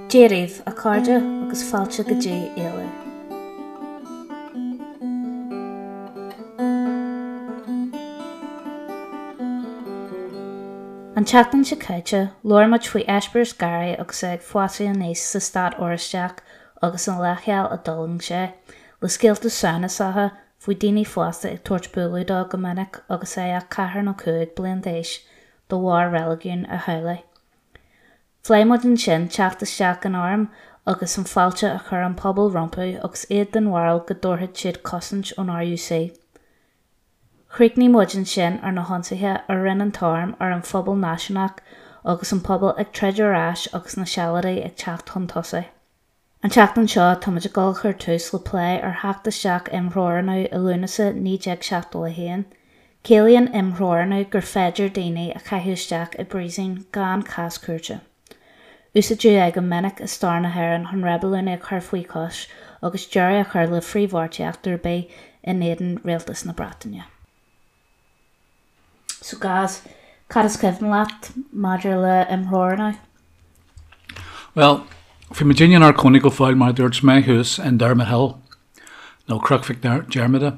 Dia daoibh, a chairde, agus fáilte go dtí Éalú. An tseachtain seo caite, labhair muid faoi eispéireas Gary agus é ag fásadh aníos sa stát Oráisteach agus an leithcheal a d'fhulaing sé, le scéalta samhnasacha faoi daoine fásta ag tabhairt bualadh dó go minic agus é ach ceathair nó 5 bliain d'aois de bharr reiligiún a theaghlaigh. Phléigh muid ansin teacht isteach an airm agus an fáilte a chuir an pobal rompu agus iad den bharúil go dtabharfadh siad cosaint ón RUC. Chríochnaigh muid ansin ar na hionsaithe a rinne an t-arm ar an phobal náisiúnach agus an pobal ag troid ar ais agus na Sealadaigh ag teacht chun tosaigh. An tseachtain seo táimid ag dul a chur tús le plé ar theacht isteach imthreorannú i Lúnasa 1971. Ciallaíonn imthreorannú gur féidir daoine a chaitheamh isteach i bpríosún gan cás cúirte. Úsáideadh é go minic i stair na hÉireann chun reibiliúnaigh a chur faoi chois agus deireadh a chur le frithbheartaíocht ar bith in éadan rialtas na Breataine. So Gaz, cad is cuimhin leat maidir le imthreorannú? Bhuel, bhí muidinne inár cónaí go fóill mar a dúirt mé thuas in Dermot Hill. nó Cnoc Mhic Diarmada,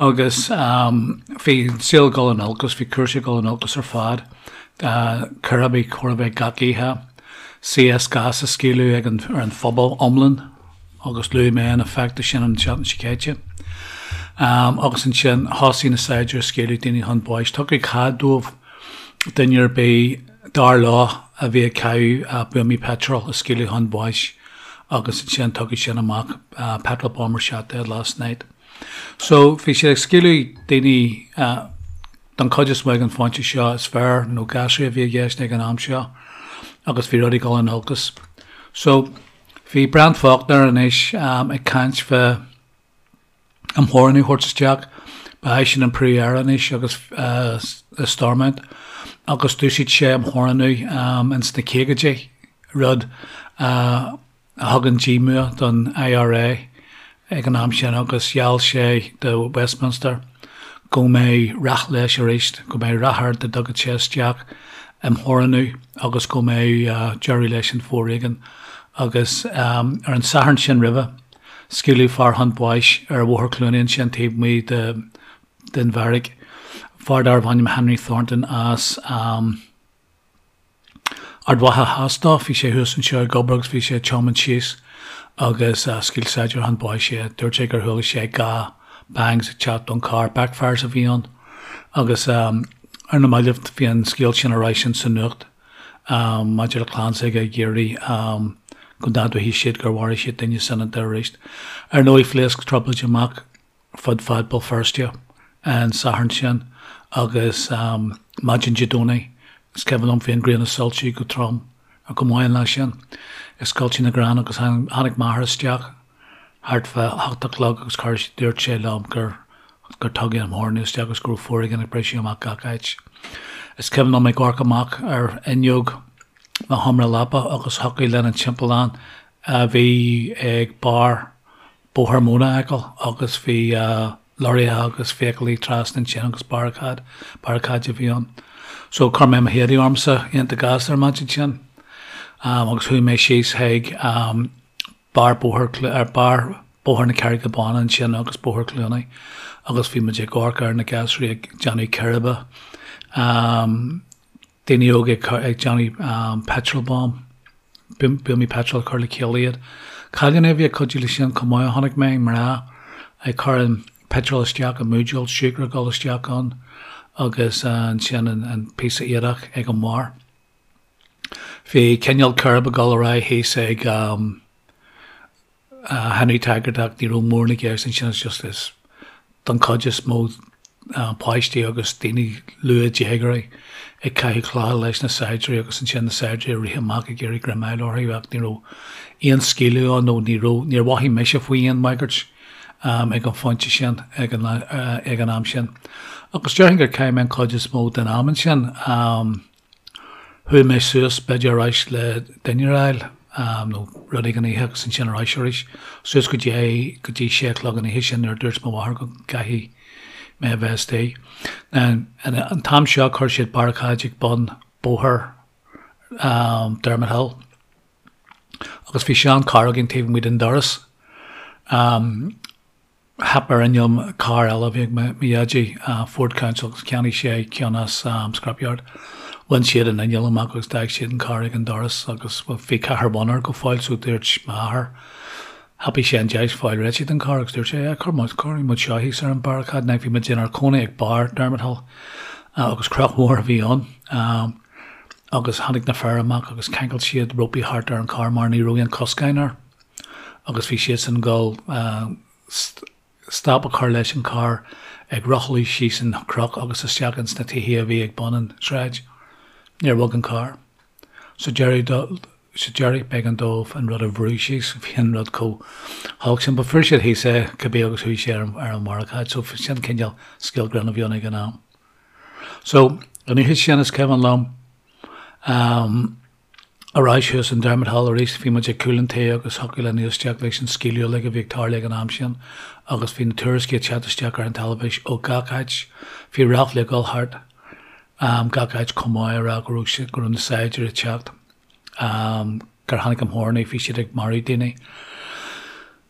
agus bhí an saol ag dul in olcas, bhí cúrsaí ag dul in olcas ar fad, círéibí chóir a bheith gach oíche, CS gas á scaoileadh ag an, ar an phobal iomlán agus luaigh mé an effect sin an tseachtain seo caite. Agus ansin thosaigh na saighdiúirí ag scaoileadh daoine chun báis. Tugadh cead dóibh duine ar bith dar leo a bhí ag caitheamh buamaí peitril a scaoileadh chun báis. agus ansin tugadh sin amach, petrol bomber shot dead last night. So bhí siad ag scaoileadh daoine don chuid is mó ag an phointe seo, is fir nó gasraí a bhí i gceist ag an am seo agus bhí rudaí ag dul in olcas. So bhí Brian Faulkner anois ag caint fá imtheorannú a thabhairt isteach. Ba eisean an Príomh-Aire anois agus i Stormont agus d'úsáid sé imtheorannú ins na caogaidí, rud a thug an díomua don IRA ag an am sin agus gheall sé do Westminster go mbeadh rath leis arís, go mbeadh rath air dá dtugadh sé isteach imtheorannú agus go mbeadh deireadh leis an bhforéigean. Agus ar an Satharn sin roimhe, Scaoileadh fear chun báis ar Bhóthar Chluanaí ansin taobh amuigh den bheairic, fear darbh ainm Henry Thornton as Ard Mhacha Theas dó. Bhí sé thuas anseo ag obair agus bhí sé ag tiomáint síos agus scaoil saighdiúir chun báis é. Dúirt sé gur chuala sé 2 bangs ag teacht ón carr, backfires a bhí ann agus ar na mallaibh bhí an scéal sin ar ais insa nuacht. maidir le clann s'aige ag iarraidh go n-admhóidh siad gur mharaigh siad duine soineanta arís. Ar ndóigh, phléasc trioblóid amach fud fad Béal Feirste an Satharn sin agus maidin Dé Domhnaigh, is cuimhin liom, bhí an ghrian ag soilsiú go trom, go maith an lá sin, i scoilteadh na gcrann agus tháinig m'athair isteach thart fá hocht a chlog agus chuir, dúirt sé liom gur gur tugadh imtheorannú isteach agus go raibh foréigean ag briseadh amach gach áit. Is cuimhin liom ag amharc amach ar fhuinneog mo sheomra leapa agus thiocfadh linn an timpeallán a bhí ag barr Bóthar Móna a fheiceáil agus bhí lorraithe agus feithiclí trasna ansin agus barricade, barricade a bhí ann. So chuir mé mo héadaí ormsa iontach gasta ar maidin sin agus chuaigh mé síos chuig barr bóthar ar barr Bóthar na Carraige Báine ansin agus Bóthar Cluanaí agus bhí muid ag amharc ar na gasraí ag déanamh círéibe, daoine óga ag déanamh petrol bomb, buamaí petrol ag cur le chéile iad. Cailíní a bhí ag cuidiú leis sin chomh maith a chonaic mé, mná ag cur an petrol isteach i mbuidéal, siúcra ag dul isteach ann agus ansin an píosa éadach ag an mbarr. Bhí cineál círéib ag dul ar aghaidh thíos ag Henry Taggart ach ní raibh mórán i gceist ansin it's just is don chuid is mó páistí agus daoine luath déagóirí ag caitheamh clocha leis na saighdiúirí agus ansin na saighdiúirí ag rith amach ag iarraidh greim a fháil orthu ach ní raibh aon scaoileadh ann nó ní raibh níor mhothaigh mise faoi aon bhagairt ag an phointe sin ag an ag an am sin. Agus déarfainn gur chaith mé an chuid is mó den am ansin. Chuaigh mé suas, b'fhéidir ar ais le dinnéar a fháil nó rud éigin a ithe agus ansin ar ais arís, suas go dtí go dtí sé a chlog an oíche sin nuair a dúirt mo mháthair go gcaithfidh mé a bheith istigh. Now, an t-am seo chuir siad barricade ag bun bóthar Dermot Hill. Agus bhí sean carr againn taobh amuigh den doras. Theip ar inneall carr eile a bhí ag mo dhaidí, Ford Council, agus cheannaigh sé ceann as scrapyard. Bhain siad an inneall amach agus d'fhág siad an carr ag an doras agus bhí ceathair bhonn air go fóill so dúirt m'athair, thapaigh sé an deis fáil réitithe den carr agus dúirt sé, yeah, cuir muid, cuirfidh muid seo thíos ar an barricade. Now bhí muid inár cónaí ag barr Dermot Hill agus cnoc mhór a bhí ann agus tháinig na fir amach agus cheangail siad rópaí thart ar an carr mar ní raibh aon coscáin air. Agus bhí siadsan ag dul stop a chur leis an carr ag rothlú síos an chnoc agus isteach ins na tithe a bhí ag bun an sráid. Níor bhog an carr. Sa deireadh sa deireadh b'éigean dóibh an rud a bhrú síos, bhí an rud chomh holc sin. But fuair siad thíos é cibé agus chuaigh sé ar an bharricade. So sin cineál scéal grinn a bhí ann ag an am. So an oíche sin is cuimhin liom Ar ais thuas in Dermot Hill arís, bhí muid ag cúl an tí agus thiocfadh linn éisteacht leis an scaoileadh uilig a bhí ag tarlú ag an am sin agus bhí na tuairiscí ag teacht isteach ar an teilifís ó gach áit. Bhí ráflaí ag dul thart gach áit chomh maith ag rá go raibh siad, go raibh na saighdiúirí ag teacht, gur tháinig an tArm, bhí siad ag marú daoine.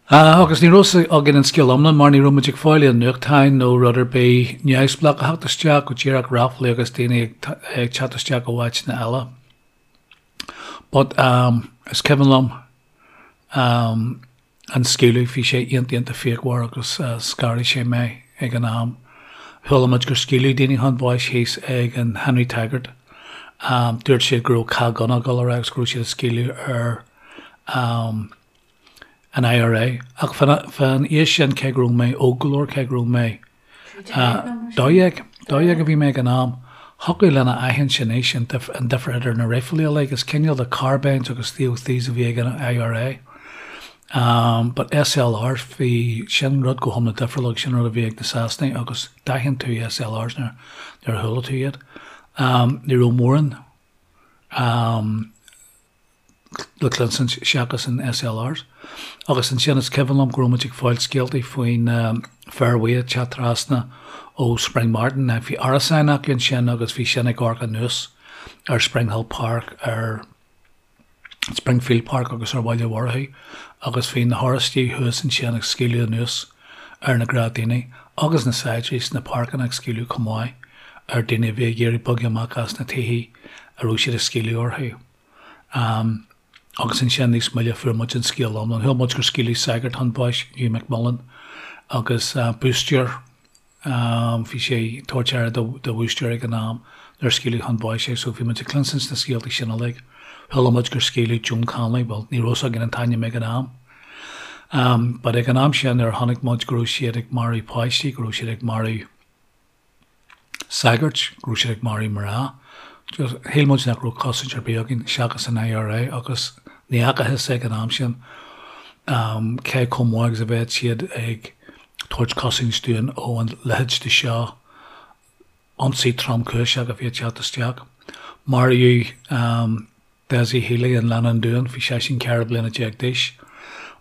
Agus ní raibh fhios againn an scéal iomlán mar ní raibh muid ag fáil aon nuachtáin nó rud ar bith neamhspleách a theacht isteach, go díreach ráflaí agus daoine ag teacht isteach ó áiteanna eile. But um is cuimhin liom um an scaoileadh, bhí sé iontach iontach fíochmhar agus scanraigh sé mé ag an am. Chuala muid gur scaoileadh daoine chun báis thíos ag an Henry Taggart. Um dúirt siad go raibh cath gunna ag dul ar aghaidh agus go raibh siad ag scaoileadh ar um an IRA. Ach fán aois sin cé go raibh mé óg go leor, cé go raibh mé 12, 12 a bhí mé ag an am, thiocfadh linn a aithint anois an difear idir na raidhfilí uilig. Is cineál de carbines agus 303s a bhí ag an IRA. But SLRs, bhí sin rud go hiomlán difriúil agus sin rud a bhí ag na Sasanaigh agus d'aithin tú SLRs nuair a chuala tú iad. Ní raibh mórán le cluinstin seachas an SLRs. Agus ansin is cuimhin liom go raibh muid ag fáil scéaltaí faoi na fir bhuí ag teacht trasna ó Springmartin. Bhí árasáin acu ansin agus bhí sin ag amharc anuas ar Springhill Park, ar Springfield Park agus ar Bhaile Mhurchú agus bhí na hOráistigh thuas ansin ag scaoileadh anuas ar na gnáthdhaoine agus na saighdiúirí sna páirceanna ag scaoileadh chomh maith ar daoine a bhí ag iarraidh bogadh amach as na tithe a raibh siad ag scaoileadh orthu. Agus ansin níos moille fuair muid an scéal iomlán. Chuala muid gur scaoileadh sagart chun báis, Hugh McMullen, agus búisteoir, bhí sé ag tabhairt aire do bhúisteoir ag an am nuair a scaoileadh chun báis é. So bhí muid ag cluinstin na scéaltaí sin uilig. Chuala muid gur scaoileadh Joan Connolly, bhuel ní raibh fhios againn an t-ainm ag an am. But ag an am sin nuair a chonaic muid go raibh siad ag marú páistí, go raibh siad ag marú sagairt, go raibh siad ag marú mná. Just, shíl muid nach raibh cosaint ar bith againn seachas an IRA agus ní fhacathas ag an am sin cé chomh maith agus a bheadh siad ag tabhairt cosaint dúinn ó an leithéid de seo ionsaí tromchúiseach a bhí ag teacht isteach. Maraíodh Dessie Healy in Leann an Dúin, bhí seisean 14 bliana d'aois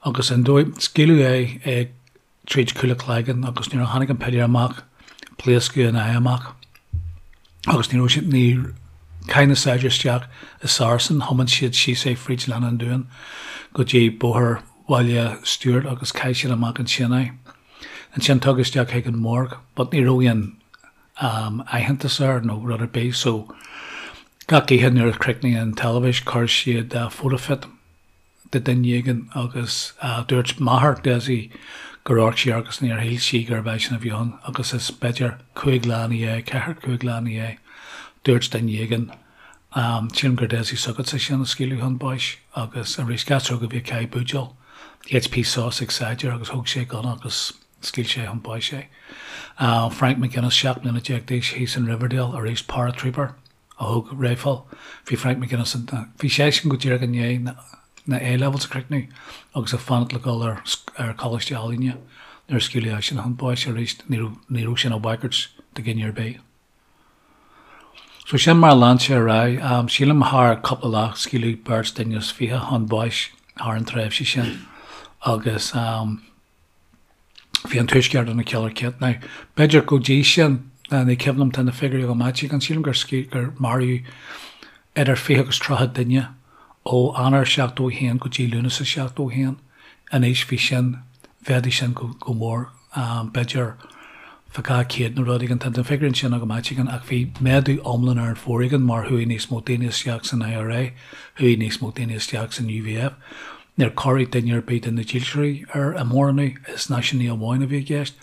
agus an dóigh, scaoileadh é ag tríd cúl a cloigeann agus nuair a tháinig an piléar amach pléascadh an aghaidh amach agus ní raibh siad, ní, chaith na saighdiúirí isteach i Saracen, thiomáin siad síos é fríd Leann an Dúin go dtí bóthar Bhaile Stuart agus chaith siad amach ansin é. Ansin tugadh isteach chuig an morgue but ní raibh aon aitheantas air nó rud ar bith so gach oíche nuair a chríochnaigh an teilifís chuir siad photofit de duine éigin agus dúirt máthair Dessie gur amharc sí air agus níor shíl sí gurbh eisean a bhí ann agus is b'fhéidir chúig lá ina dhiaidh, ceathair, cúig lá ina dhiaidh, dúirt duine éigin, sílim gur Dessie s'agatsa sin a scaoileadh chun báis agus arís gasúr óg a bhí ag caitheamh buidéal HP sauce ag saighdiúir agus thóg sé gunna agus scaoil sé chun báis é. Frank McGuinness, 17 mbliana d'aois, thíos in Riverdale, arís paratrooper. a thóg raidhfil. Bhí Frank McGuinness in, bhí seisean go díreach i ndiaidh na A-levels a chríochnú agus ag fanacht le dul ar ar Choláiste Ealaíne nuair a scaoileadh eisean chun báis arís. Ní raibh, ní raibh sin ina bhagairt do dhuine ar bith. So sin mar a lean sé ar aghaidh. Sílim thar cúpla lá scaoileadh beirt duine is fiche chun báis thar an tréimhse sin agus Bhí an Tuaisceart ina killer kit. Now, b'fhéidir go dtí sin, ní cuimhin liom, tá na figiúirí agam áit éigin, sílim gur gur maraíodh idir 20 agus 30 duine Ó Eanáir 71 go dtí Lúnasa 71, anois bhí sin, mhéadaigh sin go go mór, b'fhéidir fá 200 nó rud éigin, tá na figiúirí ansin agam áit éigin, ach bhí méadú iomlán ar an bhforéigean mar chuaigh níos mó daoine isteach san IRA, chuaigh níos mó daoine isteach san UVF. Níor cuireadh duine ar bith de na dílseoirí ar an móránú, is náisiúnaí amháin a bhí i gceist.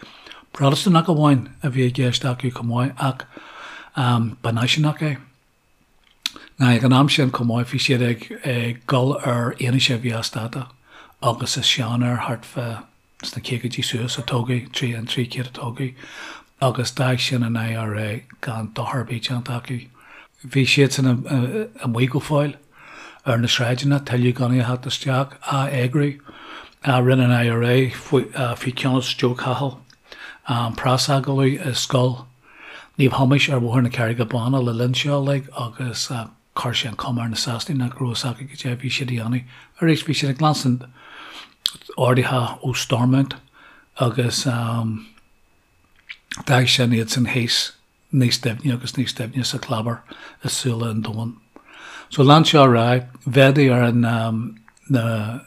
Protastúnach amháin a bhí i gceist acu chomh maith ach ba náisiúnach é. Now ag an am sin chomh maith bhí siad ag ag dul ar fhianaise a bhí as dáta agus is seanfhear thart fá sna caogaidí suas a tógadh, trí an 300 a tógadh agus d'fhág sin an IRA gan dochar ar bith déanta acu. Bhí siadsan amuigh go fóill ar na sráideanna, tuilleadh gunnaí a theacht isteach, á eagrú. Rinne an IRA faoi cheannas Joe Cahill preasagallamh i scoil Naomh Thomáis ar Bhóthar na Carraige Báine le linn seo uilig agus chuir sé an chuma ar na Sasanaigh nach raibh fhios acu cad é a bhí siad a dhéanamh. Arís, bhí siad ag leanstan orduithe ó Stormont agus d'fhág sin iad san thíos níos doimhne agus níos doimhne sa chlábar i súile an domhain. So lean seo ar aghaidh, mhéadaigh ar an na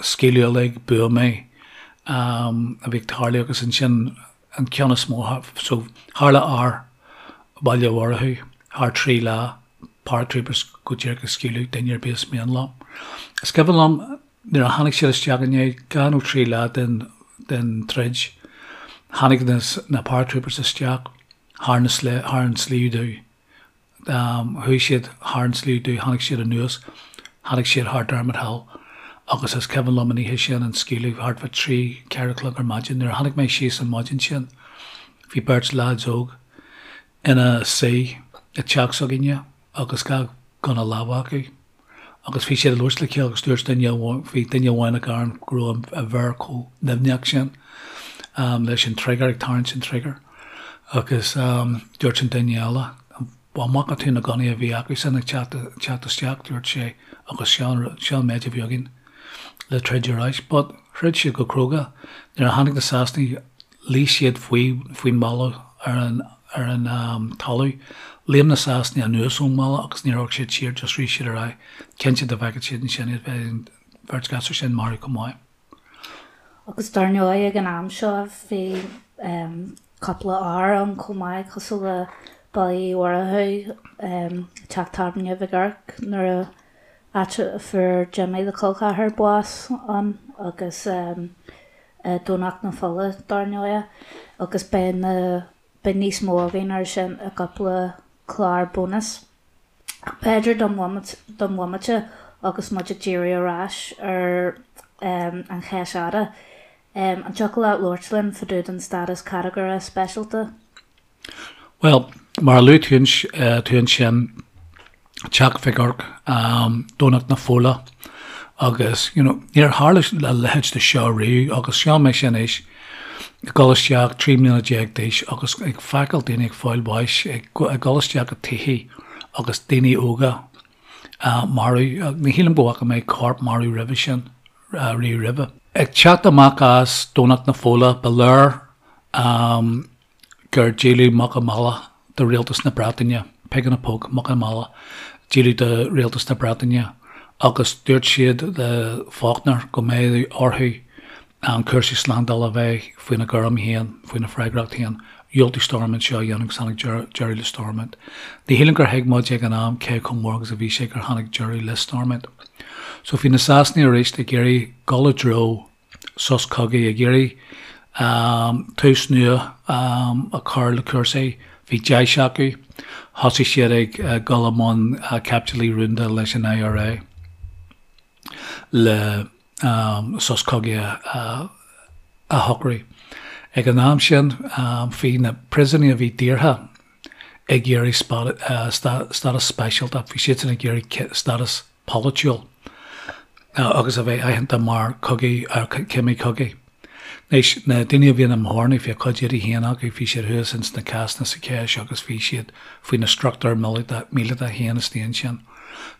scaoileadh uilig, buamaí a bhí ag tarlú agus ansin an ceann is mó, so tharla ár Bhaile Mhurchú thar 3 lá, paratroopers go díreach ag scaoileadh duine ar bith is mian leo. Is cuimhin liom nuair a tháinig siad isteach i ndiaidh 2 nó 3 lá den den troid, tháinig na na paratroopers isteach thar na thar an Sliabh Dubh. Chuaigh siad thar an Sliabh Dubh, tháinig siad anuas, tháinig siad thar Dermot Hill agus is cuimhin liom an oíche sin an scaoileadh thart fá trí, 4 a chlog ar maidin. Nuair a tháinig mé síos an maidin sin bhí beirt leaids óg ina suí i dteach s'againne agus 2 gunna láimhe acu. Agus bhí siad ag labhairt le chéile agus dúirt duine amháin, bhí duine amháin ag gearán go raibh a mhéar chomh nimhneach sin leis an trigger, ag tarraingt an trigger. Agus dúirt an duine eile, an bhfaca tú na gunnaí a bhí acusan ag teacht, teacht isteach, dúirt sé, agus seo an, seo an méid a bhí againn le troid ar ais. But throid siad go cróga. Nuair a tháinig na Sasanaigh, Luigh siad faoi faoin mballa ar an ar an talamh. Léim na Sasanaigh anuas ón mballa agus níor amharc siad siar, just rith siad ar aghaidh. Cinnte dá bhfeicfeadh siad ansin iad bheadh an bheirt ghasúr sin marbh chomh maith. Agus dar ndóigh ag an am seo bhí cúpla ár ann chomh maith cosúil le Baile Uí Mhurchú, Teach Tábhairne Mhig Oirc nuair a áit a fuair Jimmy the Col Cheathair bás ann agus Domhnach na Fola, dar ndóigh, agus beidh na, beidh níos mó againn ar sin i gcúpla clár bónais. Ach b'fhéidir don don bhomaite agus muid ag díriú ar ais ar an Cheis Fhada, an dtiocfadh leat labhairt linn fá dtaobh den stádas catagóire speisialta? Bhuel, mar a luaigh tú ansin, Teach Mhic Oirc, Domhnach na Fola agus, you know, níor tharla a leithéid de seo riamh agus seo mise anois ag dul isteach 13 mbliana d'aois agus ag feiceáil daoine ag fáil bháis, ag dul isteach i tithe agus daoine óga marbh. Ní shílim go bhfaca mé corp marbh roimhe sin, riamh roimhe. Ag teacht amach as Domhnach na Fola, ba léir gur díoladh muc i mbaile do rialtas na Breataine, pig in a poke, muc i mbaile, díoladh do rialtas na Breataine agus dúirt siad le Faulkner go mbeadh orthu cúrsaí slándála a bheith faoina gcúram féin, faoina bhfreagracht féin. Dhiúltaigh Stormont seo a dhéanamh agus tháinig deireadh le Stormont. Ní shílim gur thuig muid ag an am cé chomh mór agus a bhí sé gur tháinig deireadh le Stormont. So bhí na Sasanaigh arís ag iarraidh dul i dtreo sos cogaidh, ag iarraidh tús nua a chur le cúrsaí. Bhí deis acu. Thosaigh siad ag dul i mbun caibidlí rúnda leis an IRA le sos cogaidh a shocrú. Ag an am sin, bhí na príosúnaigh a bhí daortha ag iarraidh stádas speisialta, bhí siadsan ag iarraidh stádas polaitiúil agus a bheith aitheanta mar chogaí, cimí cogaidh. Anois, na daoine a bhí ina mbearna, bhí a cuid éadaí féin acu, bhí siad thuas ins na cásanna sa Cheis agus bhí siad faoi na struchtúir míleata féin istigh ansin.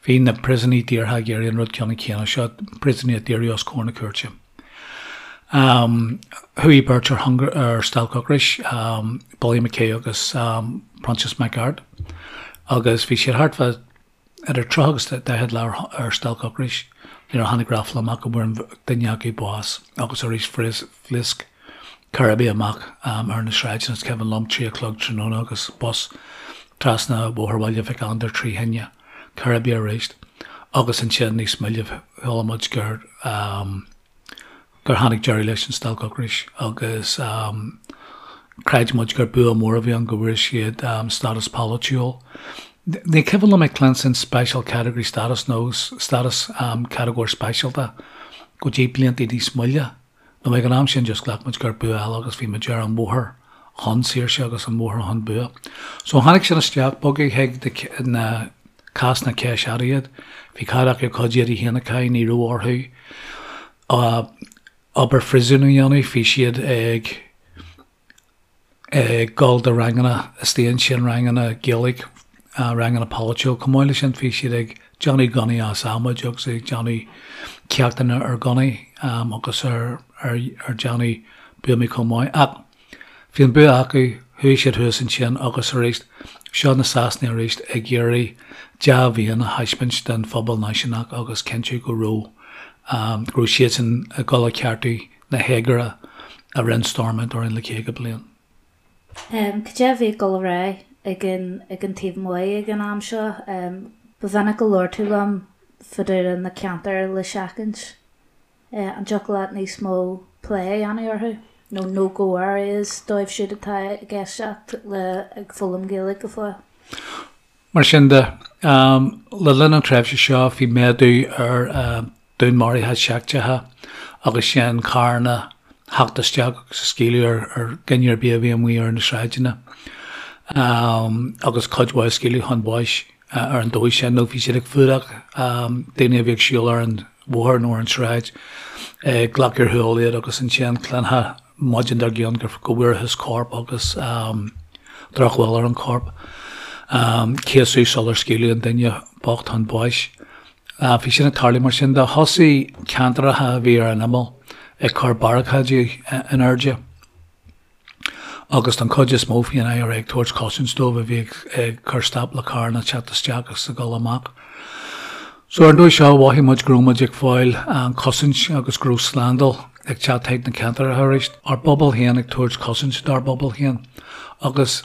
Bhí na príosúnaigh daortha ag iarraidh an rud ceannann céanna seo, príosúnaigh a daoradh os comhair na cúirte. Chuaigh beirt ar hunger, ar stailc ocrais, Billy McKay agus Proinsias Mac Airt, agus bhí siad thart fá. idir 30 agus 40 lá ar stailc ocrais nuair a tháinig ráfla amach go bhfuair duine acu bás agus arís phléasc cairbí amach ar na sráideanna. Is cuimhin liom 3 a chlog tráthnóna agus bus trasna Bhóthar Bhaile Mhic Andair trí thine, cairbí arís agus ansin níos moille chuala muid gur gur tháinig deireadh leis an stailc ocrais agus chreid muid gur bua mór a bhí ann go bhfuair siad stádas polaitiúil. Ní cuimhin liom ag cluinstin special category status nó stádas catagóir speisialta go dtí blianta níos moille. Nó ag an am sin just ghlac muid gur bua eile agus bhí muid ar an bhóthar chun saoirse agus an bhóthar chun bua. So tháinig sin isteach, bogadh chuig na cásanna ceist iad. Bhí cead acu a gcuid éadaí féin a chaitheamh, ní raibh orthu obair phríosúin a dhéanamh, bhí siad ag ag dul do ranganna istigh ansin, ranganna Gaeilge, ranganna polaitiúil. Chomh maith leis sin bhí siad ag déanamh gunnaí as adhmaid agus ag déanamh ceachtanna ar ghunnaí agus ar ar déanamh buamaí chomh maith. Ach bhí an bua acu, chuaigh siad thuas ansin agus arís, seo na Sasanaigh arís ag iarraidh dea-mhéin a thaispeáint don phobal náisiúnach agus cinntiú go raibh go raibh siadsan ag dul a cheartú na héagóra a rinne Stormont orainn le 50 bliain. Cad é a bhí ag dul ar aghaidh ag an ag an taobh amuigh ag an am seo? Ba mhinic a labhair tú liom fá dtaobh de na ceantair le seachaint. An dtiocfadh leat níos mó plé a dhéanamh orthu? Nó no go areas dóibh siúd atá ag éisteacht le ag foghlaim Gaeilge go fóill? Mar sin de, le linn an tréimhse seo bhí méadú ar dúnmharuithe seicteacha agus sin carranna ag theacht isteach agus ag scaoileadh ar dhuine ar bith a bhí amuigh ar na sráideanna agus cuid mhaith a scaoileadh chun báis ar an dóigh sin nó bhí siad ag fuadach daoine a bhí ag siúl ar an bhóthar nó ar an tsráid, ag glacadh ar shiúl iad agus ansin chluinfeá maidin dár gcionn go bhfuarthas corp agus drochbhail ar an chorp. Céasadh sular scaoileadh an duine bocht chun báis. Bhí sin ag tarlú mar sin de. Thosaigh ceantracha a bhí ar an imeall ag cur barricáidí in airde agus don chuid is mó bhí an IRA ag tabhairt cosaint dóibh a bhí ag cur stop le carranna teacht isteach agus ag dul amach. So ar an dóigh seo mhothaigh muid go raibh muid ag fáil cosaint agus go raibh slándáil ag teacht chuig na ceantracha arís. Ár bpobal féin ag tabhairt cosaint dár bpobal féin agus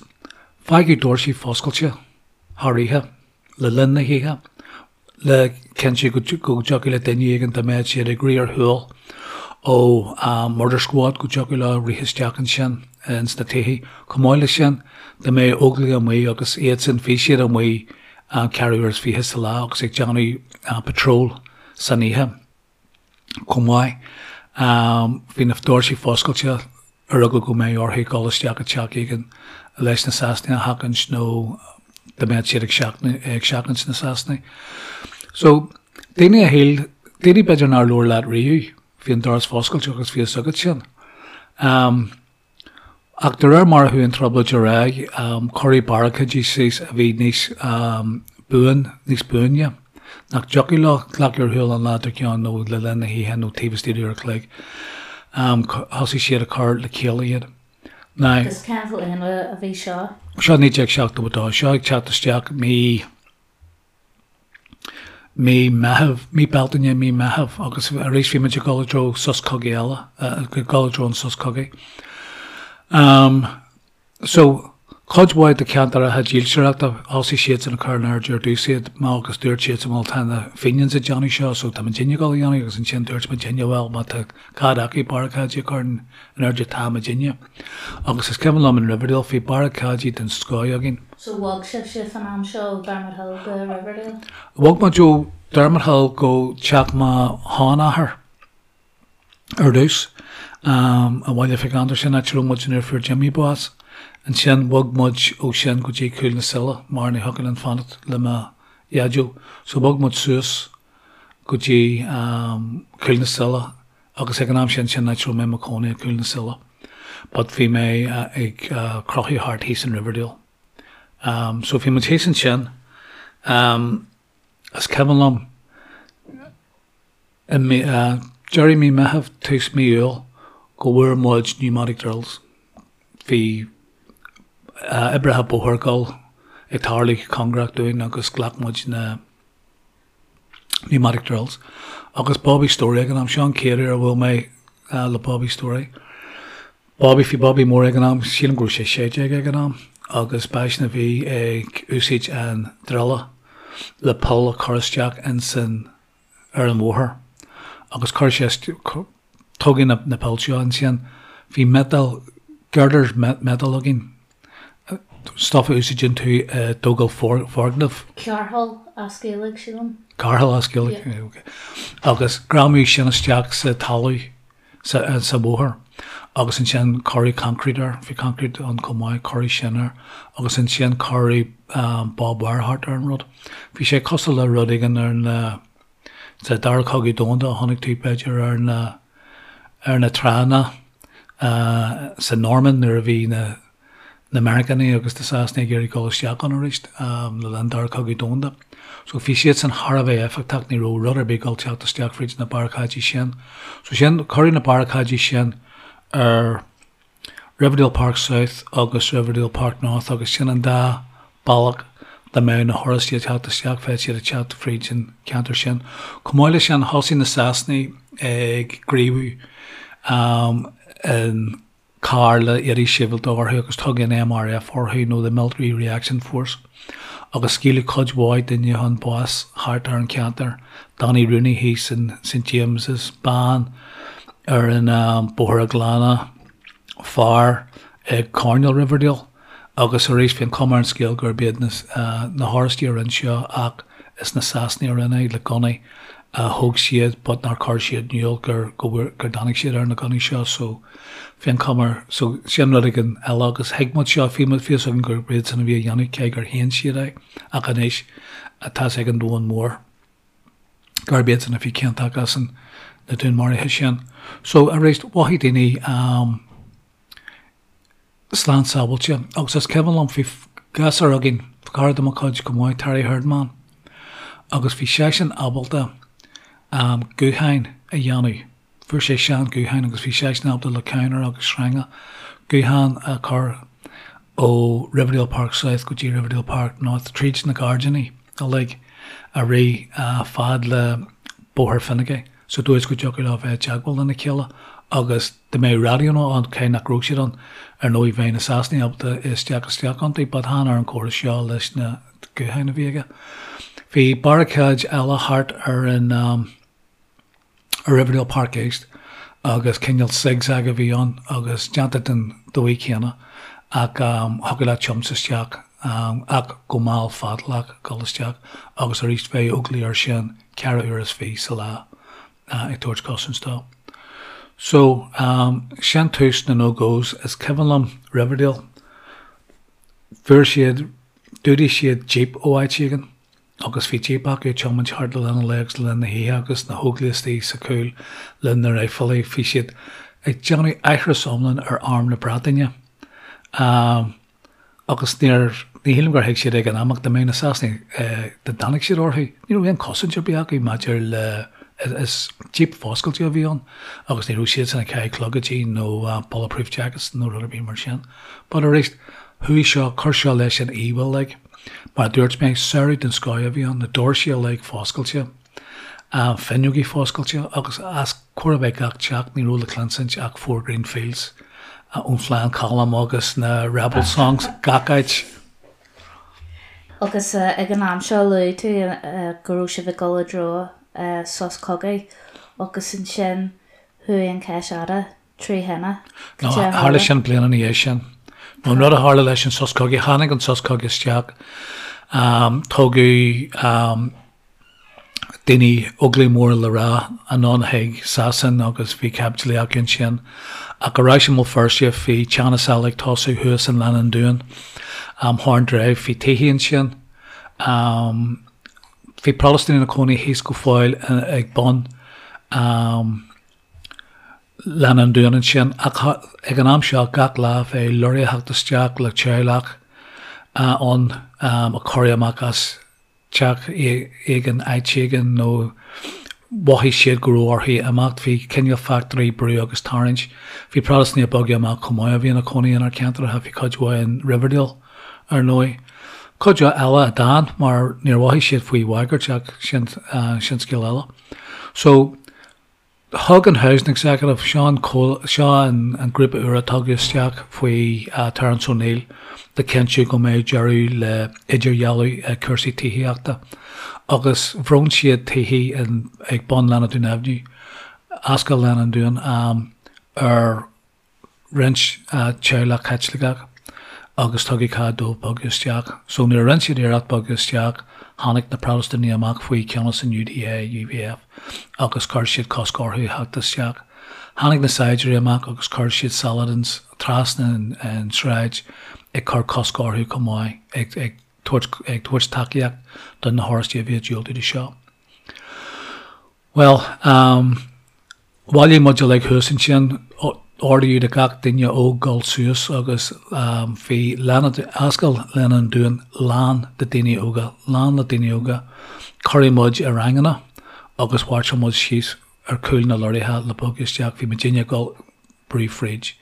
fágadh doirsí foscailte thar oíche. le linn na hoíche, le cinntiú go dtiocfadh le duine éigin dá mbeadh siad ag rith ar shiúl ó murder squad go dtiocfadh leo rith isteach ansin ins na tithe. Chomh maith leis sin, dá mbeadh Óglaigh amuigh agus iadsan, bhí siad amuigh ceathrú uair is fiche sa lá agus ag déanamh patrol san oíche. chomh maith. Bhí na doirsí foscailte ar eagla go mbeadh orthu dul isteach i dteach éigin leis na Sasanaigh a sheachaint nó dá mbeadh siad ag seachaint na Sasanaigh. So, daoine a shíl, daoine b'fhéidir nár labhair leat riamh, bhí an doras foscailte agus bhí fhios agat sin. Ach de réir mar a chuaigh an trioblóid ar aghaidh, cuireadh barricáidí síos a bhí níos buan, níos buaine, nach dtiocfadh leo glacadh ar shiúl an lá dár gcionn nó le linn na hoíche nó taobh istigh d'uair a chloig. Thosaigh siad ag cur le chéile iad. Now. Agus cén bhliain a bhí seo? Seo 1972. Seo ag teacht isteach mí. mí Meitheamh, mí Bealtaine, mí Meitheamh agus arís bhí muid ag dul i dtreo sos cogaidh eile, ag dul i dtreo an sos cogaidh. So, cuid mhaith de cheantracha dílseoireachta, thosaigh siadsan ag cur in airde ar dtús iad, má agus dúirt siadsan bhuel tá na Fenians ag déanamh seo so tá muidinne ag dul a dhéanamh agus ansin dúirt muidinne bhuel má tá cead acu barricáidí a chur in airde tá muidinne. Agus is cuimhin liom in Riverdale bhí barricáidí den scoth againn. So bhog sibhse fan am seo ó Dermot Hill go Riverdale? Bhog muid ó Dermot Hill go teach mo sheanathar ar dtús, i mBaile Mhic Andair, sin áit a raibh muid nuair a fuair Jimmy bás. Ansin bhog muid ó sin go dtí Cúil na Sile mar ní thiocfadh linn fanacht le mo dhaideo. So bhog muid suas go dtí Cúil na Sile agus ag an am sin, sin áit a raibh mé i mo chónaí i Cúil na Sile but bhí mé ag crochadh thart thíos in Riverdale. So bhí muid thíos ansin, is cuimhin liom i mí, deireadh mí Meitheamh, tús mí Iúil go bhfuair muid pneumatic drills. Bhí oibrithe bóthair ag dul ag tarlú cóngarach dúinn agus ghlac muid na. Pneumatic drills. Agus Bobby Storey ag an am, seo an chéad uair a bhuail mé le Bobby Storey. Bobby, bhí Bobby mór ag an am, sílim go raibh sé 16 ag an am, agus b'eisean a bhí ag úsáid an druile le poll a chur isteach insan, ar an bhóthar agus chuir sé, tógadh na poill seo ansin, bhí metal, girders metal againn, stuff a úsáideann tú i dtógáil foirgneamh. Cearthall as Gaeilge, sílim. Cearthall as Gaeilge, ok. Agus greamaíodh sin isteach sa talamh, sa bhóthar agus ansin cuireadh concrete air, bhí concrete ann chomh maith, cuireadh sin air agus ansin cuireadh barbed wire thart ar an rud. Bhí sé cosúil le rud éigin ar na, sa Dara Cogadh Domhanda a chonaic tú b'fhéidir ar na, ar na tránna sa Normainn nuair a bhí na, na Meiriceánaigh agus na Sasanaigh ag iarraidh dul isteach ann arís le linn Dara Cogadh Domhanda. So bhí siad san thar a bheith éifeachtach, ní raibh rud ar bith ag dul teacht isteach fríd na barricáidí sin. So sin, cuireadh na barricáidí sin ar Riverdale Park South agus Riverdale Park North agus sin an dá bealach dá mbeadh na hOráistigh ag teacht isteach, bheadh siad ag teacht fríd an ceantar sin. Chomh maith leis sin, thosaigh na Sasanaigh ag gníomhú in carr le éadaí sibhialta orthu agus tugadh an MRF orthu nó the Military Reaction Force agus scaoileadh cuid mhaith daoine chun báis thart ar an cheantar, Danny Rooney thíos in St James's, bean ar an Bóthar a' Ghleanna, fear ag coirnéal Riverdale. Agus arís, bhí an chuma ar an scéal gurb iad na hOráistigh a rinne seo ach is na Sasanaigh a rinne é le gunnaí a thóg siad but nár chuir siad in iúl gur gur tháinig siad ar na gunnaí seo so bhí an chuma air so sin rud éigin eile agus thuig muid seo, bhí muid fios againn gurb iad san a bhí á dhéanamh cé gur shéan siad é ach anois tá 's ag an domhan mór gurb iad san a bhí ciontach as an na dúnmharuithe sin. So arís, mhothaigh daoine slán sábháilte. Agus is cuimhin liom, bhí gasúr againn, cara de mo chuid chomh maith, Terry Herdman, agus bhí seisean ábalta gutháin a dhéanamh. Fuair sé sean gutháin agus bhí seisean ábalta le cadhnra agus sreanga guthán a chur ó Riverdale Park South go dtí Riverdale Park North tríd na gairdíní uilig a rith fad le Bóthar Finaghy sa dóigh is go dtiocfadh leo bheith i dteagmháil lena chéile agus dá mbeadh raidiónna ann, cé nach raibh siad ann, ar ndóigh bheadh na Sasanaigh ábalta isteach isteach iontu but chan ar an chóras seo leis na gutháin a bhí aige. Bhí barricáid eile thart ar an ar Riverdale Park East agus cineál zigzag a bhí ann agus déanta den dóigh chéanna ach thiocfadh leat tiomáint isteach ach go mall fadálach dul isteach agus arís bheadh Óglaigh air sin ceithre uair is fiche sa lá ag tabhairt cosaint dó. So, sin tús na no-gos. Is cuimhin liom Riverdale, fuair siad, d'fhuadaigh siad jeep ó áit éigin agus bhí jeep acu ag tiomáint thart le linn an lae agus le linn na hoíche agus na hÓglaigh istigh sa chúl le na raidhfilí. Bhí siad ag déanamh aithris iomlán ar arm na Breataine. Agus níor, ní shílim gur thuig siad ag an am ach dá mbeadh na Sasanaigh, dá dtáinig siad orthu, ní raibh aon chosaint ar bith acu maidir le, is jeep foscailte a bhí ann agus ní raibh siadsan ag caitheamh clogaidí nó bulletproof jackets nó rud ar bith mar sin. But arís, chuaigh seo, chuir seo leis an íomhá uilig. Mar a dúirt mé, samhradh den scoth a bhí ann, na doirsí uilig foscailte. Fuinneogaí foscailte agus os chóir a bheith gach teach ní raibh le cluinsint ach Four Green Fields ón Phlean Colm agus na Rebel Songs gach áit. Agus ag an am seo luaigh tú go raibh sibh ag dul i dtreo sos cogaidh agus ansin chuaigh an Cheis Fhada trí thine. No, tharla sin bliain ina dhiaidh sin. No, an rud a tharla leis an sos cogaidh, tháinig an sos cogaidh isteach, tugadh daoine Óglaigh móra le rá anonn chuig Sasain agus bhí caibidlí acu ansin. Ach ar ais i mBéal Feirste bhí teannas eile ag tosú thuas in Leath an Dúin, Horn Drive, bhí tithe ansin. Bhí Protastúnaigh ina cónaí thíos go fóill ag bun Leath an Dúin ansin ach ag an am seo gach lá bheadh lorry ag theacht isteach le teaghlach ann a cuireadh amach as teach éigin, áit éigin nó mhothaigh siad go raibh orthu imeacht. Bhí cineál factory brú agus tarraingt. Bhí Protastúnaigh ag bogadh amach chomh maith a bhí ina cónaí inár ceantracha. Bhí cuid mhaith in Riverdale, ar ndóigh. Cuid eile a d'fhan mar níor mhothaigh siad faoi bhagairt ach sin sin scéal eile. So thug an Housing Executive, seo an seo an an grúpa úr a tugadh isteach faoi Terence O'Neill le cinntiú go mbeadh deireadh le idirdhealú i cúrsaí tithíochta agus bhronn siad tithe in ag bun Lána Dúin Avenue, Ascaill Lána an Dúin, ar roinnt teaghlach Caitliceach agus tugadh cead dóibh bogadh isteach. So nuair a rinne siad iarracht bogadh isteach, tháinig na Protastúnaigh amach faoi cheannas an UDA, UVF agus chuir siad cosc orthu theacht isteach. Tháinig na saighdiúirí amach agus chuir siad Saladins trasna an tsráid ag cur cosc orthu chomh maith, ag ag tabhairt ag tabhairt tacaíocht do na hOráistigh a bhí ag diúltú do seo. Bhuel, bhailigh muid uilig thuas ansin, ordaíodh do gach duine óg dul suas agus bhí Ascaill Lána an Dúin lán de daoine óga, lán le daoine óga. Cuireadh muid i ranganna agus mhairseáil muid síos ar chúl na lorraithe le bogadh isteach. Bhí muidinne ag dul brú fríd.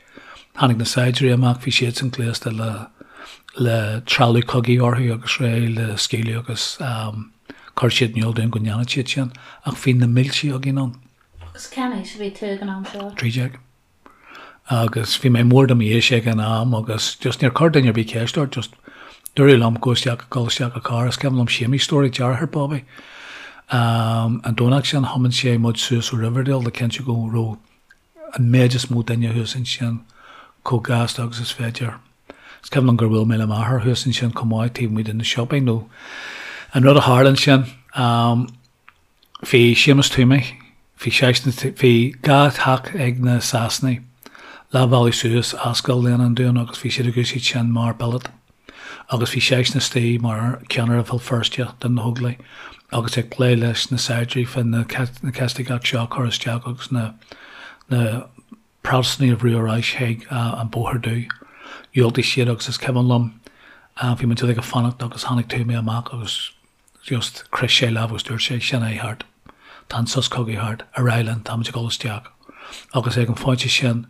Tháinig na saighdiúirí amach, bhí siadsan gléasta le le trealamh cogaidh orthu agus réidh le scaoileadh agus chuir siad in iúl dúinn go ndéanfadh siad sin ach bhí na mílte againn ann. Agus cén aois a bhí tú ag an am seo? 13. Agus bhí mé mór do m'aois ag an am agus just níor chuir duine ar bith ceist ort, just dúradh liom go isteach, dul isteach i carr. Is cuimhin liom Séamie Storey, deartháir Bobby, an Domhnach sin thiomáin sé muid suas ó Riverdale le cinntiú go raibh an méid is mó duine thuas ansin chomh gasta agus is féidir. Is cuimhin liom gur bhuail mé le m'athair thuas ansin chomh maith taobh amuigh de na siopaí nó an rud a tharla ansin, bhí Séamus Toomey, bhí seisean, bhí 2 theach ag na Sasanaigh leath bhealaigh suas Ascaill Léana an Dúin agus bhí siad ag úsáid sin mar billet. agus bhí seisean istigh mar cheannaire Bhéal Feirste do na hÓglaigh agus ag plé leis na saighdiúirí fá na Caitlicigh seo a chur isteach agus na na Protastúnaigh a bhrú ar ais chuig an Bóthar Dubh. Dhiúltaigh siad agus is cuimhin liom bhí muid uilig ag fanacht agus tháinig Toomey amach agus just chroith sé lámh agus dúirt sé, sin é thart. Tá an sos cogaidh thart. Ar aghaidh linn, táimid ag dul isteach. Agus ag an phointe sin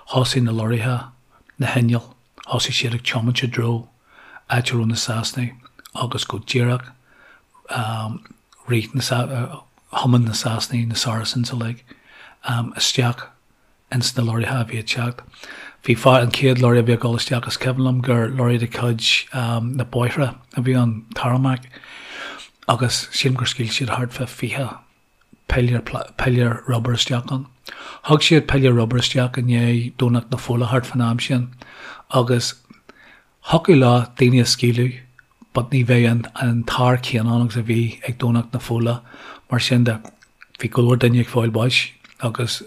thosaigh na lorraithe, na hinnill, Thosaigh siad ag tiomáint i dtreo áit a raibh na Sasanaigh agus go díreach rith na, thiomáin na Sasanaigh, na Saracens uilig, isteach ins na lorraithe a bhí ag teacht. Bhí fear, an chéad lorry a bhí ag dul isteach, is cuimhin liom gur lorry de chuid na bóithre a bhí ann, tarmac, agus sílim gur scaoil siad thart fá 20 piléar piléar rubair isteach ann. Thug siad piléar rubair isteach i ndiaidh Domhnach na Fola thart fán am sin agus thiocfadh leo daoine a scaoileadh but ní bheadh an an t-ár céanna ann agus a bhí ag Domhnach na Fola mar sin de bhí go leor duine ag fáil báis agus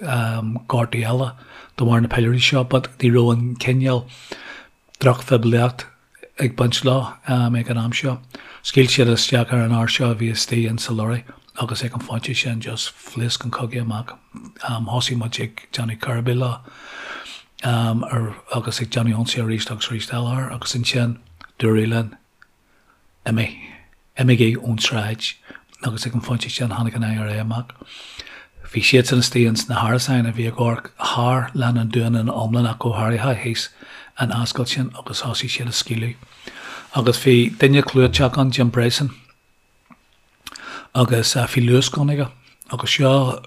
gortaí eile de bharr na piléirí seo but ní raibh an cineál drochphoiblíocht ag baint leo ag an am seo. Scaoil siad isteach ar an fhear seo a bhí istigh in sa lorry agus ag an phointe sin just phléasc an cogadh amach. Thosaigh muid ag déanamh cur leo agus ag déanamh ionsaí arís agus arís eile air agus ansin dúradh linn Imigh. Imígí ón tsráid. Agus ag an phointe sin tháinig an IRA amach. Bhí siadsan istigh ins na hárasáin a bhí ag amharc thar Lána an Dúin ina iomlán ach go háirithe thíos an ascaill sin agus thosaigh siad ag scaoileadh. Agus bhí duine clúiteach ann, Jim Bryson, agus bhí Lewis gun aige agus seo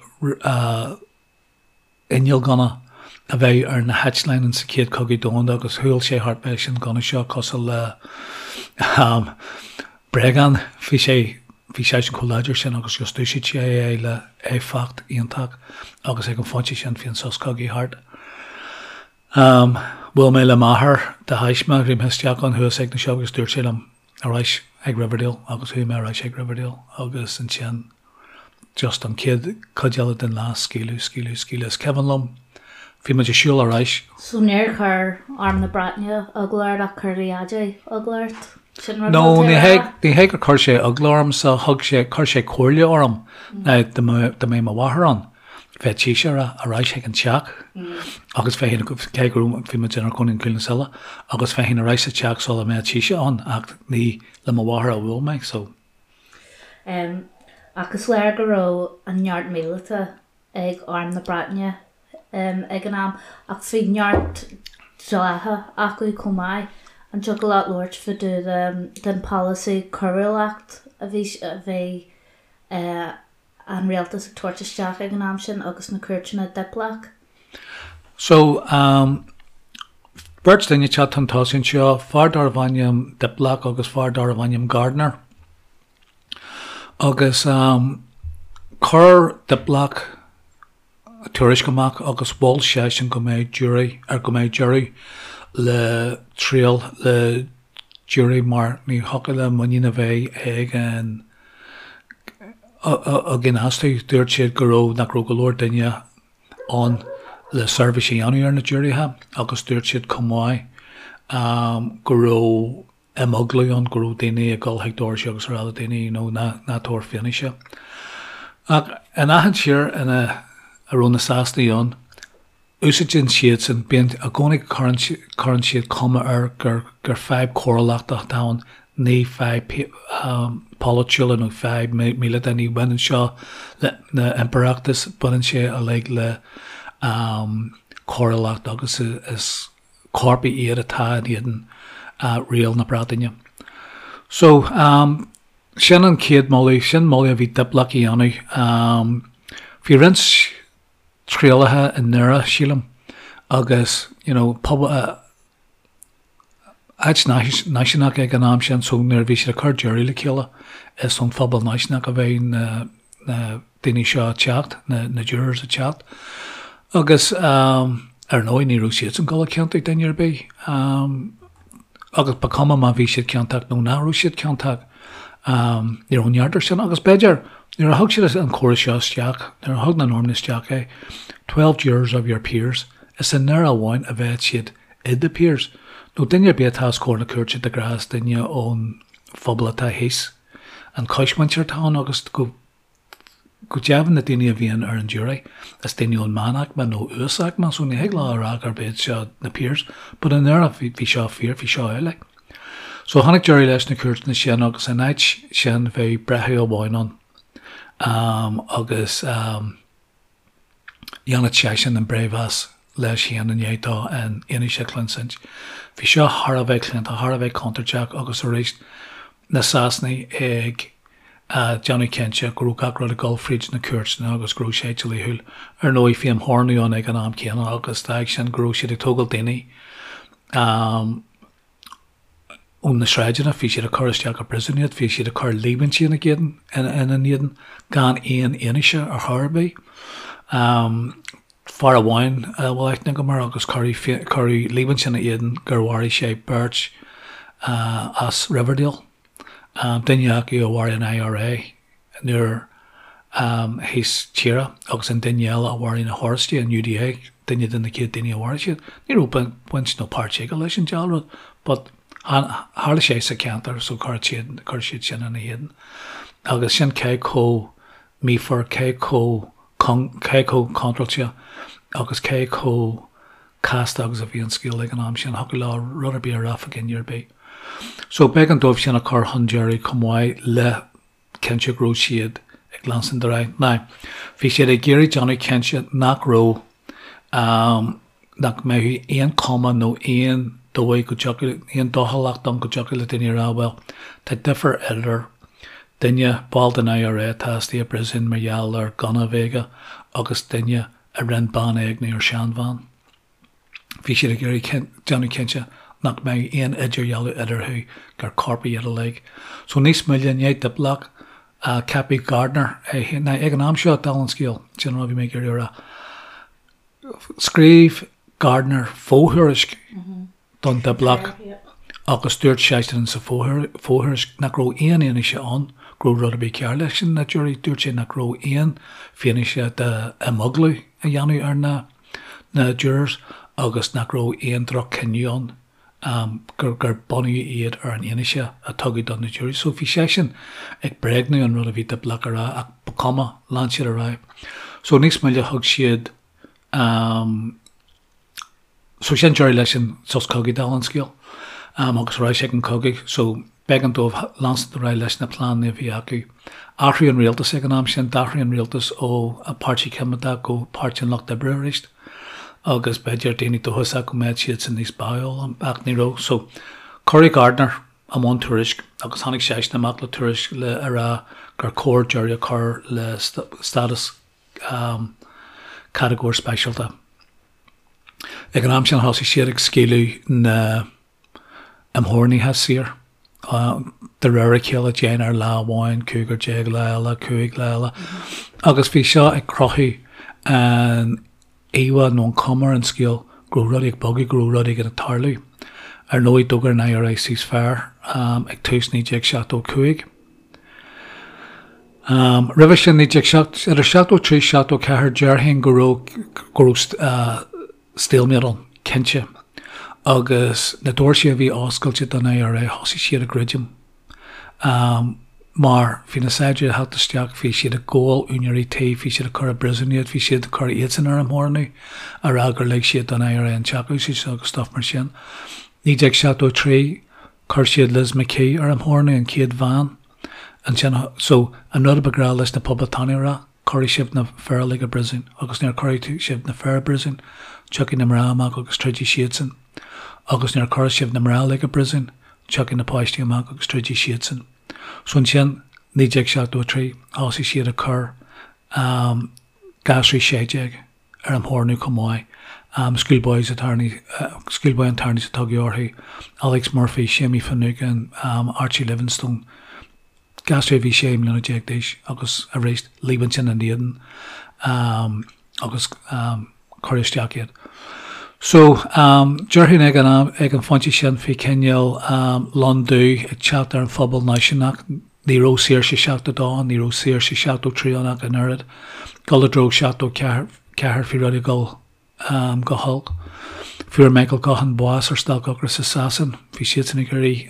inneall gunna a bheadh ar na heitleáin in sa Chéad Chogadh Domhanda agus shiúil sé thart leis an gunna seo cosúil le bréagán. Bhí sé bhí seisean chomh láidir sin agus just d'úsáid sé é le éifeacht iontach agus ag an phointe sin bhí an sos cogaidh thart. Bhuail mé le m'athair de thaisme, bhí mé isteach ann thuas ag na siopaí agus dúirt sé liom ar ais ag Riverdale agus chuaigh mé ar ais ag Riverdale agus ansin just an chéad chuid eile den lá, scaoileadh, scaoileadh, scaoileadh. Is cuimhin liom, bhí muid ag siúl ar ais. So níor chuir Arm na Breataine eagla ort ach chuir do dhaidí eagla ort? Sin rud No, atá tú ní a hé, rá? ní hé gur chuir sé eagla ormsa, thug sé, chuir sé comhairle orm ná dá mbeadh, dá mbeadh mo mháthair ann, bheadh sise ag rá, ar ais chuig an teach agus bheinn, cé go raibh, bhí muid inár gcónaí in Cúil na Sile, agus bheinn ar ais sa teach sula mbeadh sise ann ach ní le mo mháthair a bhuail mé, so. Ach is léir go raibh an neart míleata ag Arm na Breataine ag an am, ach bhí neart dlíthe acu chomh maith. An dtiocfadh leat labhairt fá dtaobh den polasaí coiriúlacht a bhí a bhí an rialtas ag tabhairt isteach ag an am sin agus na cúirteanna Diplock? So, beirt duine ag teacht chun tosaigh anseo, fear darbh ainm Diplock agus fear darbh ainm Gardiner. Agus chuir Diplock tuairisc amach agus mhol seisean go mbeadh jury ar go mbeadh deireadh le triail le jury mar ní thiocfadh le muinín a bheith ag an againn astu. Dúirt siad go raibh nach raibh go leor duine ann le seirbhís a dhéanamh ar na giúiréithe agus dúirt siad chomh maith go raibh imeaglú ann, go raibh daoine ag dul chuig doirse agus a rá le daoine you know ná ná tabhair fianaise. Ach in achan tír ina a raibh na Sasanaigh ann, úsáideann siadsan, bíonn i gcónaí cuireann cuireann siad cuma air gur gur fadhb cóiriúlachta atá ann, ní fadhb polaitiúla nó fadhb míleata, ní bhaineann seo le na impireachtas, baineann sé uilig le cóiriúlacht agus is coirpigh iad atá in éadan riail na Breataine. So, sin an chéad moladh, sin moladh a bhí Diplock a dhéanamh. Bhí roinnt trialacha i nDoire, sílim, agus, you know, pobal, áit náisiúnach ag an am sin, so nuair a bhí siad ag cur jury le chéile, is ón phobal náisiúnach a bheadh na, na daoine seo ag teacht, na, na jurors ag teacht. Agus ar ndóigh ní raibh siadsan ag dul a chiontú duine ar bith. Agus ba chuma má bhí siad ciontach nó nach raibh siad ciontach, ní raibh neart air sin. Agus b'fhéidir, nuair a thug siad an córas seo isteach, nuair a thug na Normannaigh isteach é, 12 jurors of your peers, is i nDoire amháin a bheadh siad i the peers, nó duine ar bith atá os comhair na cúirte de ghnáth is duine ón phobal atá thíos, an choismhuintir atá ann agus go go deimhin na daoine a bhíonn ar an jury is daoine ón meánaicme nó uasaicme so ní thig leo a rá gurb iad seo na peers but i nDoire bhí bhí seo fíor, bhí seo amhlaidh. So tháinig deireadh leis na cúirteanna sin agus in áit sin bheadh breitheamh amháin ann um, agus um, Dhéanfadh seisean an breithmheas leis féin i ndiaidh dó an fhianaise a chluinsint. Bhí seo thar a bheith claonta, thar a bheith contúirteach agus arís na Sasanaigh ag déanamh cinnte go raibh gach rud ag dul fríd na cúirteanna agus go raibh sé dlíthiúil. Ar ndóigh bhí imtheorannú ann ag an am céanna agus d'fhág sin go raibh siad ag tógáil daoine ó na sráideanna, bhí siad ag cur isteach i bpríosún iad, bhí siad ag cur líomhaintí ina gcéadan, ina n-éadan gan aon fhianaise ar chor ar bith. Fear amháin a bhfuil aithne agam air agus cuireadh, cuireadh líomhaint ina éadan gur mharaigh sé beirt as Riverdale, duine acu a mharaigh an IRA nuair thíos tíre agus an duine eile a mharaigh na hOráistigh, an UDA, duine de na chéad daoine a mharaigh siad. Ní raibh baint nó páirt aige leis an diabhal rud but tharla sé sa cheantar so chuir siad, chuir siad sin ina éadan. Agus sin cé chomh míofar, cé chomh cé chomh contráilte agus cé chomh casta agus a bhí an scéal ag an am sin. Thiocfadh leo rud ar bith a rá fá dhuine ar bith. So b'éigean dóibh sin a chur chun deiridh chomh maith le cinnte go raibh siad ag leanstan ar aghaidh. Now, bhí siad ag iarraidh déanamh cinnte nach raibh, nach mbeadh aon chuma nó aon dóigh go dtiocfadh, aon dóchúlacht ann go dtiocfadh le daoine a rá, bhuel, tá difear idir duine, ball den IRA atá istigh i bpríosún mar gheall ar gunna a bheith aige agus duine a rinne bean a éigniú ar seanbhean. Bhí siad ag iarraidh déanamh cinnte nach mbeadh aon idirdhealú eatarthu, gur coirpigh iad uilig. So níos moille, i ndiaidh Diplock, ceapadh Gardiner é féin. Now ag an am seo, dála an scéil, sin an rud a bhí mé ag iarraidh a rá, scríobh Gardiner fo-thuairisc don Diplock agus dúirt seisean sa fho-thuairisc nach raibh aon fhianaise ann go raibh rud ar bith cearr leis na jury. Dúirt sé nach raibh aon fianaise d'imeaglú a dhéanamh ar na na jurors agus nach raibh aon droch-chinneadh ann, gur gur bunaíodh iad ar an fhianaise a tugadh do na juries. So bhí seisean ag bréagnú an rud a bhí Diplock a rá ach ba chuma, lean siad ar aghaidh. So níos moille thug siad So sin deireadh leis an sos cogaidh dála an scéil agus ar ais ag an cogadh. So b'éigean dóibh leanstan ar aghaidh leis na pleananna a bhí acu. Athraíodh an rialtas ag an am sin, d'athraigh an rialtas ó Páirtí Coimeádach go Páirtí an Lucht Oibre arís agus b'fhéidir daoine dóchasach go mbeadh siadsan níos báúla ach ní raibh. So. Cuireadh Gardiner i mbun tuairisc agus tháinig seisean amach le tuairisc le a rá gur chóir deireadh a chur le stádas catagóir speisialta. Ag an am sin thosaigh siad ag scaoileadh na n-imtheorannaithe saor. De réir a chéile, deichniúr lá amháin, 15 lá eile, 5 lá eile. Agus bhí seo ag cruthú an íomhá nó an chuma ar an scéal go raibh rudaí ag bogadh, go raibh rud éigin ag tarlú. Ar ndóigh, d'fhógair an IRA ceasefire ag tús 1975. Roimhe sin, 19, idir 73 74, déarfainn go raibh, go raibh stalemate ann, cinnte. Agus na doirse a bhí oscailte don IRA, thosaigh siad ag druidim. Mar bhí na saighdiúirí ag theacht isteach, bhí siad ag gabháil úinéirí tí, bhí siad ag cur i bpríosún iad, bhí siad ag cur iadsan ar imtheorannú, a rá gur lig siad don IRA an teach a úsáid agus stuff mar sin. 1973, chuir siad Liz McKee ar imtheorannú, an chéad bhean. Ansin, so, an rud a ba ghnách leis na poblachtánaigh a rá, cuirfidh sibh na fir uilig i bpríosún, agus nuair a chuirfidh sibh na fir i bpríosún, tiocfaidh na mná amach agus troidfidh siadsan. Agus nuair a chuirfidh sibh na mná uilig i bpríosún, tiocfaidh na páistí amach agus troidfidh siadsan. So ansin, 1973, thosaigh siad ag cur gasraí 16 ar imtheorannú chomh maith, schoolboys schoolboy internees a tugadh orthu, Alex Murphy, Seamie Finucane, Archie Livingstone, gasraí a bhí 16 mbliana d'aois agus arís líomhaint ina n-éadan agus cuireadh isteach iad. So, déarfainn ag an am, ag an phointe sin bhí cineál lon dubh ag teacht ar an phobal náisiúnach, ní raibh saoirse 72 ann, ní raibh saoirse 73 ann ach an oiread. Dul i dtreo 74, bhí rudaí ag dul go holc. Fuair Michael Gaughan bás ar stailc ocrais i Sasain, bhí siadsan ag iarraidh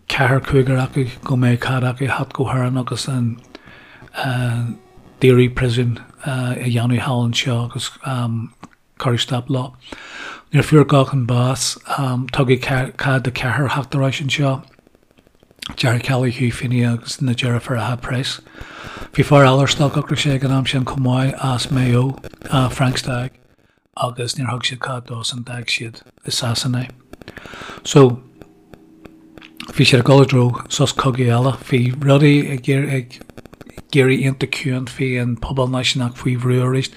ceathrar, cúigear acu go mbeadh cead acu theacht go hÉirinn agus an daoradh príosún a dhéanamh thall anseo agus cuireadh stop leo. Nuair a fuair Gaughan bás, tugadh cead do cheathrar theacht ar ais anseo, Gerry Kelly, Hugh Feeney agus na deirfiúracha Price. Bhí fear eile ar stailc ocrais ag an am sin chomh maith as Maigh Eo, Frank Stagg. agus níor thug siad cead dósan, d'fhág siad i Sasana é. So, bhí siad ag dul i dtreo sos cogaidh eile, bhí rudaí ag ag éirí iontach ciúin, bhí an pobal náisiúnach faoi bhrú arís,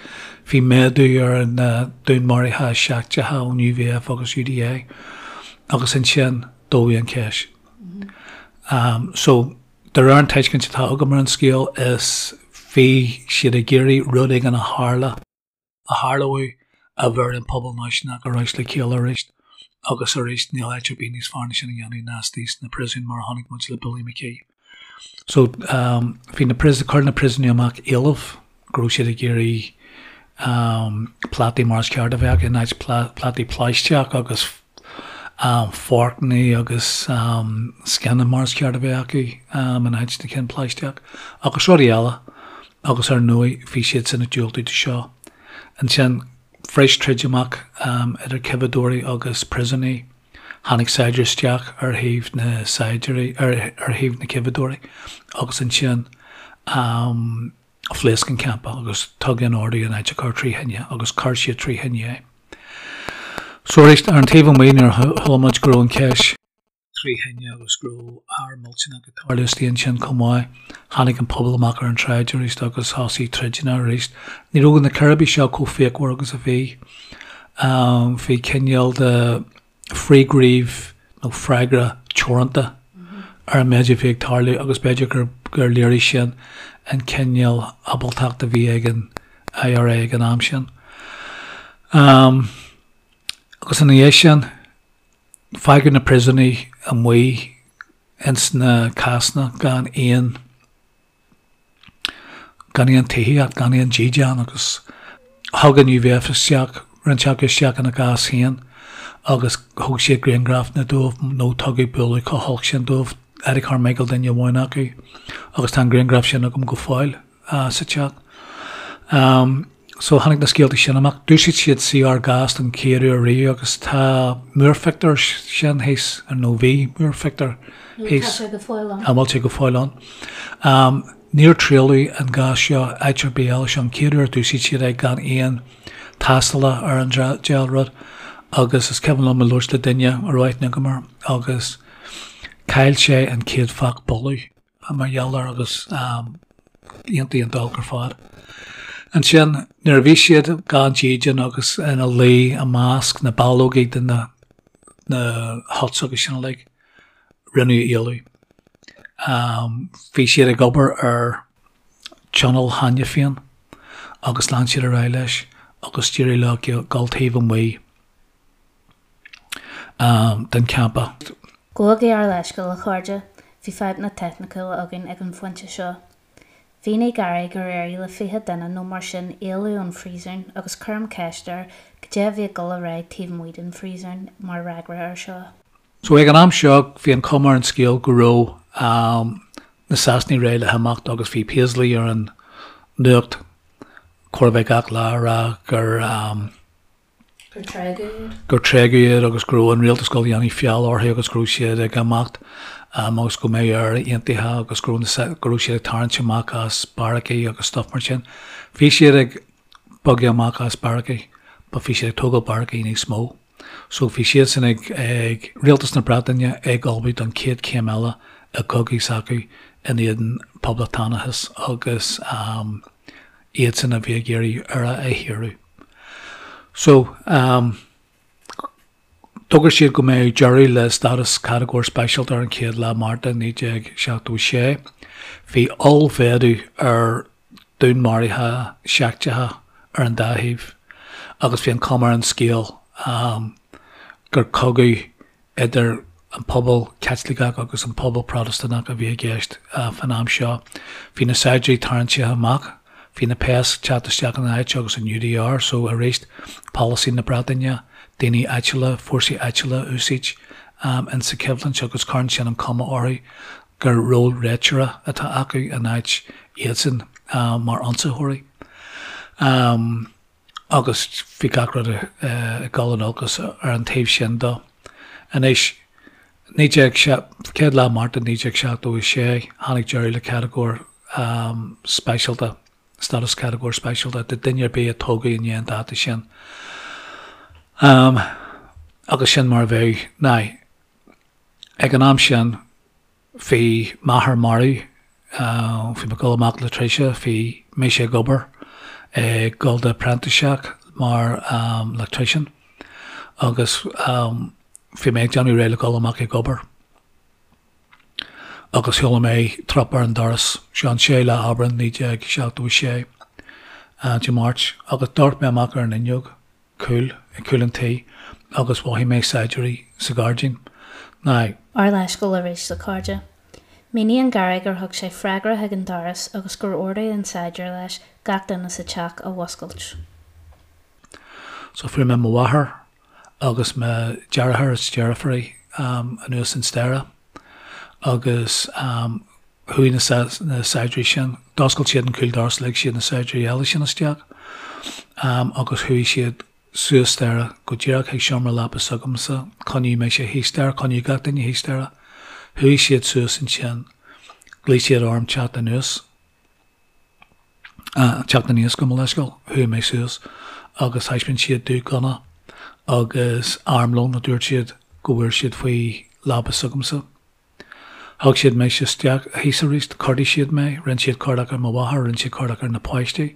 bhí méadú ar na dúnmharuithe seicteacha ón UVF agus UDA agus ansin dódh an cheist. Um, so, de réir an tuiscint atá agam ar an scéal is bhí siad ag iarraidh rud éigin a tharla a tharlódh a bheir an pobal náisiúnach ar ais le chéile arís agus arís níl áit ar bith níos fearr ná sin a dhéanamh ná istigh sna príosúin mar a chonaic muid le Billy McKee. So um, bhí na príosúin, chuir na príosúnaigh amach éileamh go raibh siad ag iarraidh um, plátaí mar is ceart a bheith acu in áit plátaí plaisteach agus um, forcanna agus um, scianna mar is ceart a bheith acu um, in áit na cinn plaisteach agus rudaí eile. agus ar ndóigh bhí siadsan ag diúltú do seo. Ansin, bhris troid amach idir coimheadóirí agus príosúnaigh. Tháinig saighdiúir isteach ar thaobh na saighdiúirí, ar thaobh na coimheadóirí agus ansin phléasc an campa agus tugadh an ordú an áit a chur trí thine agus chuir siad trí thine é. So arís, ar an taobh amuigh nuair a chuala muid go raibh an cheist. 3 thine agus go raibh ár millteanach ag tarlú istigh ansin chomh maith. Tháinig an pobal amach ar an tsráid arís agus thosaigh troideanna arís. Ní raibh na círéibí seo chomh fíochmhar agus a bhí. Bhí cineál de frithghníomh nó freagra teoranta ar an méid a bhí ag tarlú agus b'fhéidir gur gur léirigh sin an cineál ábaltacht a bhí ag an IRA ag an am sin. Agus ina dhiaidh sin, Fágadh na príosúnaigh amuigh ins na cásanna gan aon gan aon tithíocht, gan aon dídean agus thug an UVF isteach, roinnt acu isteach ina gcás féin agus thóg siad grianghrafanna dóibh nó tugadh bualadh chomh holc sin dóibh, Eddie Carmichael duine amháin acu agus tá an grianghraf sin agam go fóill. sa teach. So tháinig na scéalta sin amach. D'úsáid siad CR gas don chéad uair riamh agus tá múrphictiúr sin thíos, nó bhí múrphictiúr thíos. Tá sé go fóill ann. An bhfuil sé go fóill ann? Níor triaileadh an gás seo áit ar bith eile. Seo an chéad uair a d'úsáid siad é gan aon tástála ar an diabhal rud. Agus is cuimhin liom ag labhairt le duine a raibh aithne agam air agus chaill sé an chéad phac boladh mar gheall air agus iontach iontach olc ar fad. Ansin nuair a bhí siad gan dídean agus ina luí i measc na ballógaí de na na huts agus sin uilig, rinneadh éalú. Bhí siad ag obair ar tional cheana féin agus lean siad ar aghaidh leis agus d'éirigh leo dul taobh amuigh den champa. Gabhaigí ár leithscéal, a chairde, bhí fadhbanna teicniúla againn ag an phointe seo. Mhínigh Gary gur éirigh le 20 duine nó mar sin éalú ón phríosún agus cuirim ceist air goidé a bhí ag dul ar aghaidh taobh amuigh den phríosún mar fhreagra air seo. So ag an am seo bhí an chuma ar an scéal go raibh na Sasanaigh réidh le himeacht agus bhí Paisley ar an nuacht chóir a bheith gach lá ag rá gur Gur tréigeadh iad. gur tréigeadh iad agus go raibh an rialtas ag dul a dhéanamh feall orthu agus go raibh siad ag imeacht agus go mbeadh Éire aontaithe agus go raibh na go raibh siad ag tarraingt amach as beairicí agus stuff mar sin. Bhí siad ag bogadh amach as beairicí but bhí siad ag tógáil beairicí níos mó. So bhí siadsan ag, ag Rialtas na Breataine ag ullmhú don chéad chéim eile i gcogadh s'acu in éadan poblachtánachas agus iadsan a bhí ag iarraidh Éire a shaoradh. So d'fhógair siad go mbeadh deireadh le stádas catagóir speisialta ar an chéad lá Márta 1976. Bhí ollmhéadú ar dúnmharuithe seicteacha ar an dá thaobh agus bhí an chuma ar an scéal gur cogadh idir an pobal Caitliceach agus an pobal Protastúnach a bhí i gceist fán am seo. Bhí na saighdiúirí tarraingthe amach, bhí na péas ag teacht isteach ina áit agus an UDR, so arís polasaí na Breataine, daoine áitiúla, fórsaí áitiúla a úsáid insa choimhlint agus cuireann sin an chuma orthu gur ról réiteora atá acu in áit iadsan mar ionsaitheoirí. Agus bhí gach rud ag dul in olcas ar an taobh sin dó. Anois, 19, chéad lá Márta 1976, tháinig deireadh le catagóir speisialta, stádas catagóir speisialta do duine ar bith a tógadh i ndiaidh an dáta sin. Agus sin mar a bheadh. Now, ag an am sin, Bhí m'athair marbh, bhí mé ag dul amach le tréimhse, bhí mise ag obair, ag dul do phreintiseacht mar electrician agus bhí mé ag déanamh réidh le dul amach ag obair agus chuala mé trup ar an doras, seo an 6 lá Aibreán 1976, Dé Máirt, agus d'amharc mé amach ar an fhuinneog. cúil, ag cúl an tí agus mhothaigh mé saighdiúirí sa ghairdín. Now. Ár leithscéal arís, a chairde. Míníonn Gary gur thug sé freagra chuig an doras agus gur ordaigh an saighdiúir leis gach duine sa teach a mhuscailt. So fuair mé mo mháthair agus mo dheartháir is deirfiúr anuas an staighre agus chuaigh na saighdiúirí sin, d'oscail siad an cúl doras, lig siad na saighdiúirí eile sin isteach agus chuaigh siad suas staighre go díreach chuig seomra leapa s'agamsa, coinníodh mise thíos staighre, coinníodh gach duine thíos staighre. Chuaigh siad suas ansin, ghlaoigh siad orm teacht anuas, teacht aníos gabh mo leithscéal, chuaigh mé suas agus thaispeáin siad domh gunna agus armlón a dúirt siad go bhfuair siad faoi leaba s'agamsa. Thug siad mise isteach thíos arís, chuardaigh siad mé, rinne siad cuardach ar mo mháthair, rinne siad cuardach ar na páistí,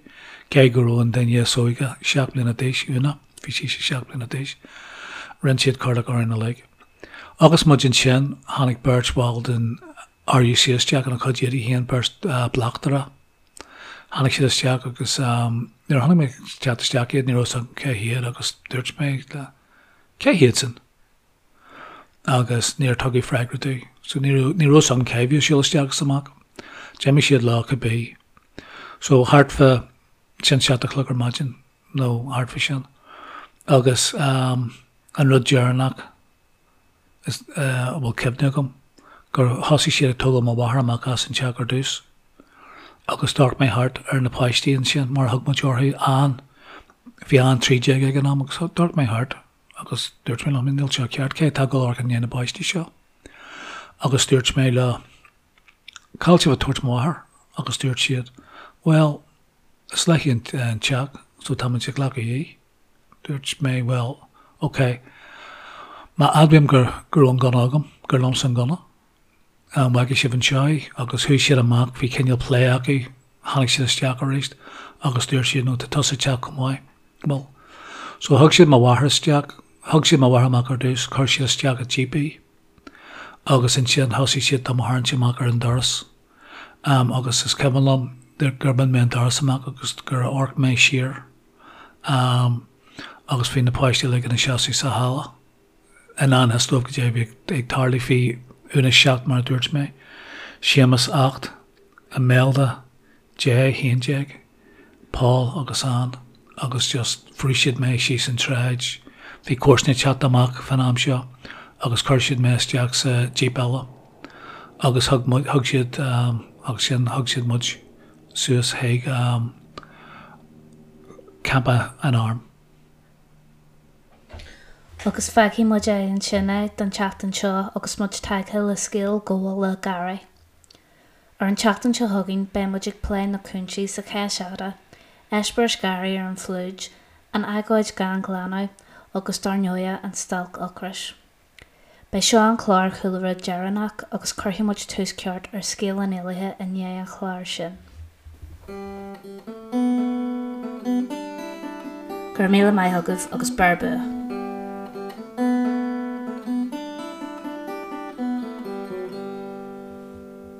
cé go raibh an duine is óige 7 mbliana d'aois, Úna, bhí sise 7 mbliana d'aois, rinne siad cuardach orainn uilig. Agus muid ansin, tháinig beirt bhall den RUC isteach ina chuid éadaí féin, beirt bleachtaire. Tháinig siad isteach agus nuair a chonaic mé ag teacht isteach iad, ní raibh 'fhios agam cé hiad agus dúirt mé le, cé hiad sin? agus níor tugadh freagra domh. So ní raibh, ní raibh 'fhios agam cé bhí ag siúl isteach is amach. D'imigh siad leo cibé. So thart fá sin 7 a chlog ar maidin nó thart fá sin. Agus an rud deireanach is a bhfuil cuimhne agam gur thosaigh siad ag tógáil mo mháthar amach as an teach ar dtús. Agus d'amharc mé thart ar na páistí ansin mar a thug muid orthu, Ann, bhí Ann 13 ag an am agus d'amharc mé thart Agus dúirt mé liom, níl seo ceart, cé atá ag dul amharc i ndiaidh na bpáistí seo? Agus dúirt mé leo, cá bhfuil sibh ag tabhairt mo mháthair? Agus dúirt siad, bhuel, is léi an teach, so táimid ag glacadh í. Dúirt mé, bhuel, Ok, má admhaím go raibh an gunna agam, gur liomsa an gunna, an bhfágfaidh sibh anseo í? Agus chuaigh siad amach, bhí cineál plé acu, tháinig siad isteach arís agus dúirt siad, no, tá tusa ag teacht chomh maith. Bhuel, so thug siad mo mháthair isteach, thug siad mo mháthair amach ar dtús, chuir siad isteach i jíp í agus ansin thosaigh siad do mo tharraingt amach ar an doras. Agus is cuimhin liom gur bhain mé an doras amach agus gur amharc mé siar agus bhí na páistí uilig ina seasamh sa halla. I ngan fhios dóibh goidé a bhí ag tarlú. Bhí Úna 7 mar a dúirt mé, Séamus 8, Imelda 10, 11, Paul agus Ann agus just bhrúigh siad mé síos an tsráid. Bhí comharsana ag teacht amach fán am seo agus chuir siad mé isteach sa jíp eile agus thug thug siad agus sin thug siad muid suas chuig campa an airm. Agus fágfaidh muid é ansin é don tseachtain seo agus muid tagtha le scéal gabhála Gary. Ar an tseachtain seo chugainn beidh muid ag plé na cúinsí sa Cheis Fhada, eispéireas Gary ar an phlúid, an agóid gan ghlanadh agus dar ndóighe an stailc ocrais. Beidh seo an clár Chúlra deireanach agus cuirfidh muid tús ceart ar scéal an éalaithe i ndiaidh an chláir sin. Go raibh míle maith agaibh agus beir bua!